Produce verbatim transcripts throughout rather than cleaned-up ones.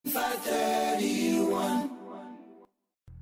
Five thirty-one.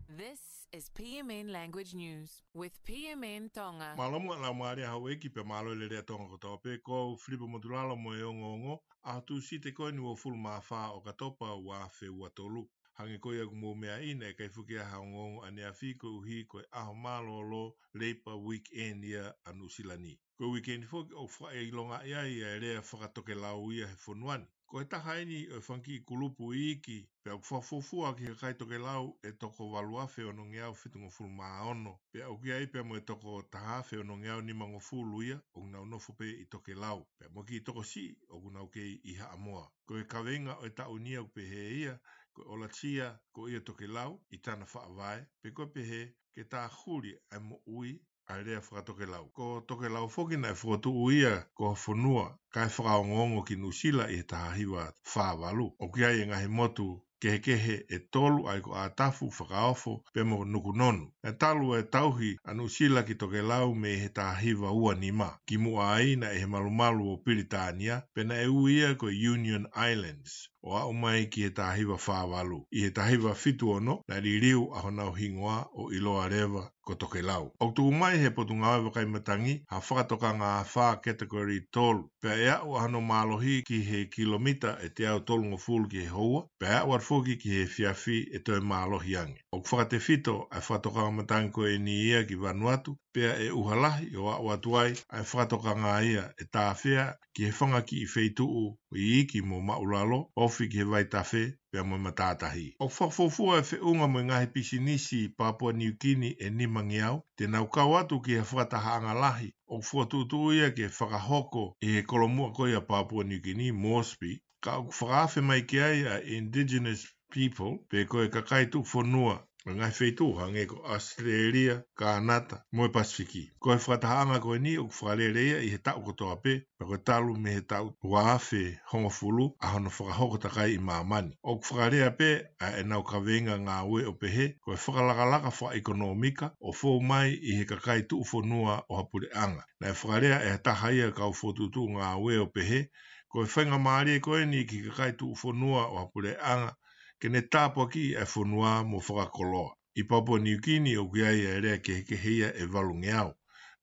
This is P M N Language News with P M N Tonga. Mālō muʻa e laumālie ʻa houʻeiki pea mālō e lelei ʻa Tonga kotoa pē. Ko au Filipe Motulalo mo e ongoongo, ʻaho Tūsite ko eni uofulu mā fā ʻo ʻOkatopa ua afe ua tolu. Hangē ko ia ʻoku mou meaʻi, naʻe ʻikai foki ha ongoongo ʻaneafi koeʻuhi ko e ʻaho mālōlō Labour Weekend ia ʻa Nuʻusila ni. Ko e weekend foki ʻoku fakaʻilongaʻi ai ʻa e lea fakatokelau ia he fonua ni. Ko e taha eni ʻo e fanga kiʻi kulupu iiki, pea ʻoku fakafuofua ki he kakai tokelau ʻe toko valu afe onongeau fitungofulu mā ono. Pea ʻoku ʻi ai pea mo e toko taha afe onongeau nimangofulu ia ʻoku nau nofo pē ʻi tokelau. Pea mo e kiʻi tokosiʻi ʻoku nau kei ʻi Haʻamoa. Ko e kaveinga ʻo e taʻu ni ʻoku pehē ia, ko e ʻOlatia ko ia tokelau ʻi tana faʻavae, pe ko e pehē ke tāhuli ʻa e moʻui ʻa e lea fakatokelau. Ko tokelau foki naʻe fokotuʻu ia ko ha fonua kae fakaongoongo ki Nuʻusila ʻi he taha hiva fā valu. ʻOku ʻi ai e ngaahi motu kehekehe ʻe tolu, ʻa ia ko ʻAtafu, Fakaofo pea mo Nukunonu. Naʻe talu e tauhi ʻa Nuʻusila ki tokelau mei he taha hiva ua nima. Kimuʻa ai naʻe ʻi he malumalu ʻo Pilitānia, pea naʻe ui ia ko e Union Islands, ʻo aʻu mai ki he taha hiva fā valu. ʻI he taha hiva fitu ono, naʻe liliu ʻa honau hingoa ʻo ʻiloa leva ko tokelau. ʻOku tuku mai he Potungāue Vakai Matangi ha fakatokanga afā category tolu, pea ʻe aʻu ʻa hono mālohi ki he kilomita ʻe teau tolungofulu ki he houa, pea ʻe aʻu atu foki ki he efiafi ʻe toe mālohi ange. ʻOku fakatefito ʻa e fakatokanga matangi ko eni ia ki Vanuatu, pea ʻe ʻuha lahi ʻo aʻu atu ai ʻa e fakatokanga ia ʻe tāfea ki he fanga kiʻi feituʻu iiki mo maʻulalo, ofi ki he vaitafe pea mo e matātahi. ʻOku fakafuofua e feʻunga mo e ngaahi pisinisi Papua Niu Kini ʻe nimangeau te nau kau atu ki he fakatahaʻanga lahi ʻoku fokotuʻutuʻu ia ke fakahoko ʻi he kolomuʻa ko ia Papua Niu Kini, Moresby, ka ʻoku fakaafe mai ki ai ʻa e indigenous people, pe ko e kakai tuʻufonua ʻo e ngaahi feituʻu hangē ko ʻAositelēlia, Kānata mo e Pasifiki. Ko e fakatahaʻanga ko eni ʻoku fakalele ia ʻi he taʻu kotoa pē, pea ko e talu mei he taʻu ua afe hongofulu ʻa hono fakahoko takai ʻi māmani. ʻOku fakalea pē ʻa ʻenau kaveinga ngāue ʻo pehē ko e fakalakalaka fakaʻekonōmika ʻo fou mai ʻi he kakai tuʻufonua ʻo ha puleʻanga. Naʻe fakalea ʻe ha taha ia kau fokotuʻutuʻu ngāue ʻo pehē ko e faingamālie ko eni ki he kakai tuʻufonua ʻo ha puleʻanga ke ne tāpuakiʻi ʻa e fonua mo fakakoloa. ʻI Papua Niu Kini ʻoku ʻi ai ʻa e lea kehekehe ia ʻe valungeau.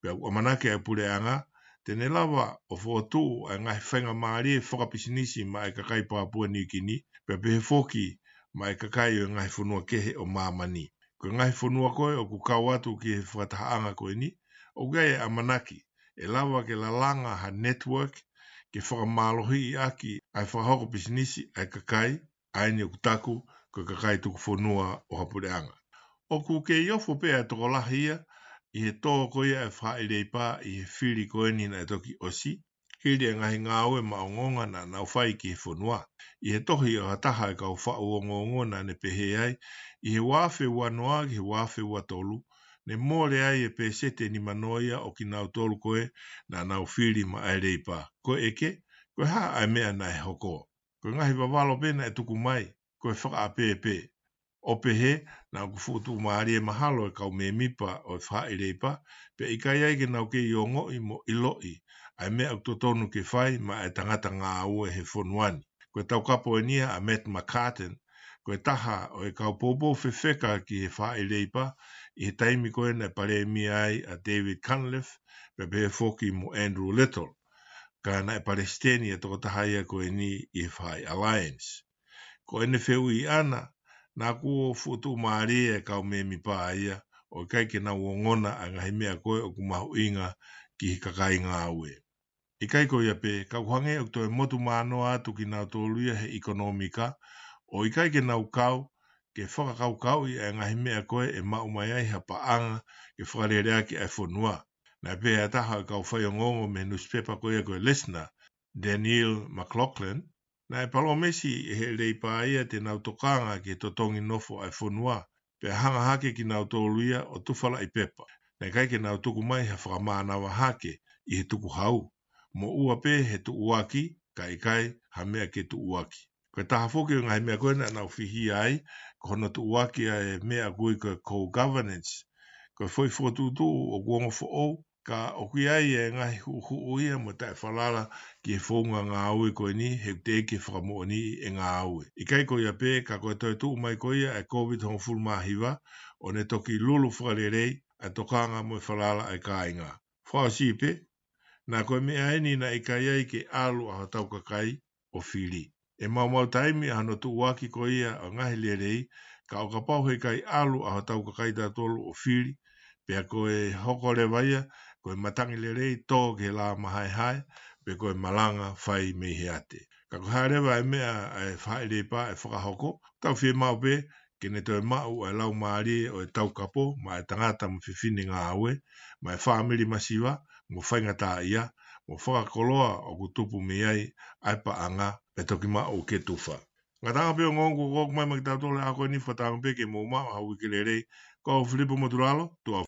Pea ʻoku ʻamanaki ʻa e puleʻanga te ne lava ʻo fokotuʻu ʻa e ngaahi faingamālie fakapisinisi maʻa e kakai Papua Niu Kini, pea pehē foki maʻa e kakai ʻo e ngaahi fonua kehe ʻo māmani. Ko e ngaahi fonua ko ē ʻoku kau atu ki he fakatahaʻanga ko eni, ʻoku ʻi ai e ʻamanaki ʻe lava ke lalanga ha network ke fakamālohiʻi ʻaki ʻa e fakahoko pisinisi ʻa e kakai ʻa eni ʻoku taku ko e kakai tuʻufonua ʻo ha puleʻanga. ʻOku kei ofo pē ʻa e tokolahi ia ʻi he tō ko ia ʻa e faʻahi leipa ʻi he fili ko eni naʻe toki ʻosi, hili e ngaahi ngāue maʻongoʻonga naʻa nau fai ki he fonua. ʻI he tohi ʻa ha taha e kau faʻu ongoongo naʻa ne pehē ai, ʻi he ua afe ua noa ki he ua afe ua tolu, ne mole ai e pēseti ʻe nimanoa ia ʻo kinautolu ko ē naʻa nau fili maʻa e leipa. Ko e ʻeke, ko e hā ʻa e meʻa naʻe hoko? Ko e ngaahi vavalo pē naʻe tuku mai, ko e fakaʻapē pē. ʻO pehē, naʻa ʻoku fuʻu tuʻumālie mahalo e kau mēmipa ʻo e faʻahi leipa, pea ʻikai ai ke nau kei ongoʻi mo ʻiloʻi ʻa e meʻa ʻoku totonu ke fai maʻa e tangata ngāue he fonua ni. Ko e taukapo eni ia ʻa Matt McCartan, ko e taha ʻo e kau poupou fefeka ki he faʻahi leipa ʻi he taimi ko ē naʻe palēmia ai ʻa David Cunliffe, pea pehē foki mo Andrew Little. Ka naʻe palesiteni ʻa e tokotaha ia ko eni ʻi he faʻahi Alliance. Ko ʻene fehuʻi ʻana, naʻa kuo fuʻu tuʻumālie e kau mēmipa ia ʻo ʻikai ke nau ongona ʻa e ngaahi meʻa ko ē ʻoku mahuʻinga ki he kakai ngāue. ʻIkai ko ia pē, ka ʻoku hangē ʻoku toe motu mānoa atu kinautolu ia he ʻekonōmika, ʻo ʻikai ke nau kau ke fakakaukauʻi ʻa e ngaahi meʻa ko ē ʻe maʻu mai ai ha paʻanga ke fakaleleʻaki ʻa e fonua. Naʻe pehē ʻe ha taha ʻo e kau faiongoongo mei he nusipepa ko ia ko e Listener, Danielle McLaughlin, naʻe palōmesi ʻe he leipa ia te nau tokanga ki he totongi nofo ʻa e fonua, pea hanga hake kinautolu ia ʻo tufalaʻi pepa. Naʻe ʻikai ke nau tuku mai ha fakamānava hake ʻi he tukuhau, moʻua pē he tuʻuaki, kae ʻikai ha meʻa ke tuʻuaki. Ko e taha foki ʻo e ngaahi meʻa ko ē naʻa nau fihia ai, ko hono tuʻuaki ʻa e meʻa ʻoku ui ko e co-governance. Ko e foʻi fokotuʻutuʻu ʻoku ongo foʻou, ka ʻoku ʻi ai e ngaahi huʻuhuʻu ia mo e taʻefalala ki he founga ngāue ko eni he ʻoku teʻeki ke fakamoʻoniʻi e ngāue. ʻIkai ko ia pē, ka ko e toe tuʻu mai ko ia e Covid hongofulu mā hiva, ʻo ne toki lulu fakalelei ʻa e tokanga mo e falala ʻa e kāinga. Fakaʻosi pē, naʻa ko e meʻa eni naʻe ʻikai ai ke ʻalu ʻa hotau kakai ʻo fili. ʻE maumau taimi ʻa hono tuʻuaki ko ia ʻo e ngaahi lelei, ka ʻo kapau he ʻikai ʻalu ʻa hotau kakai tautolu ʻo fili, pea ko e hoko leva ia ko e matangi lelei tō ki he lā mahaehae, pe ko e malanga fai mei he ate. Ka ko e hā leva e meʻa ʻa e faʻahi lepa ʻe fakahoko, tau fiemaʻu pē ke ne toe maʻu ʻa e laumālie ʻo e taukapo maʻa e tangata mo e fefine ngāue, maʻa e fāmili masiva mo faingataʻaʻia, mo fakakoloa ʻoku tupu mei ai ʻa e paʻanga ʻe toki maʻu ke tufa. Ngataʻanga pē ongoongo kuo ʻoku mai maʻa kitautolu he ʻaho ko eni, fakatauange pē ke mou maʻu ha uike lelei. Ko au Filipo Motulalo, tuʻa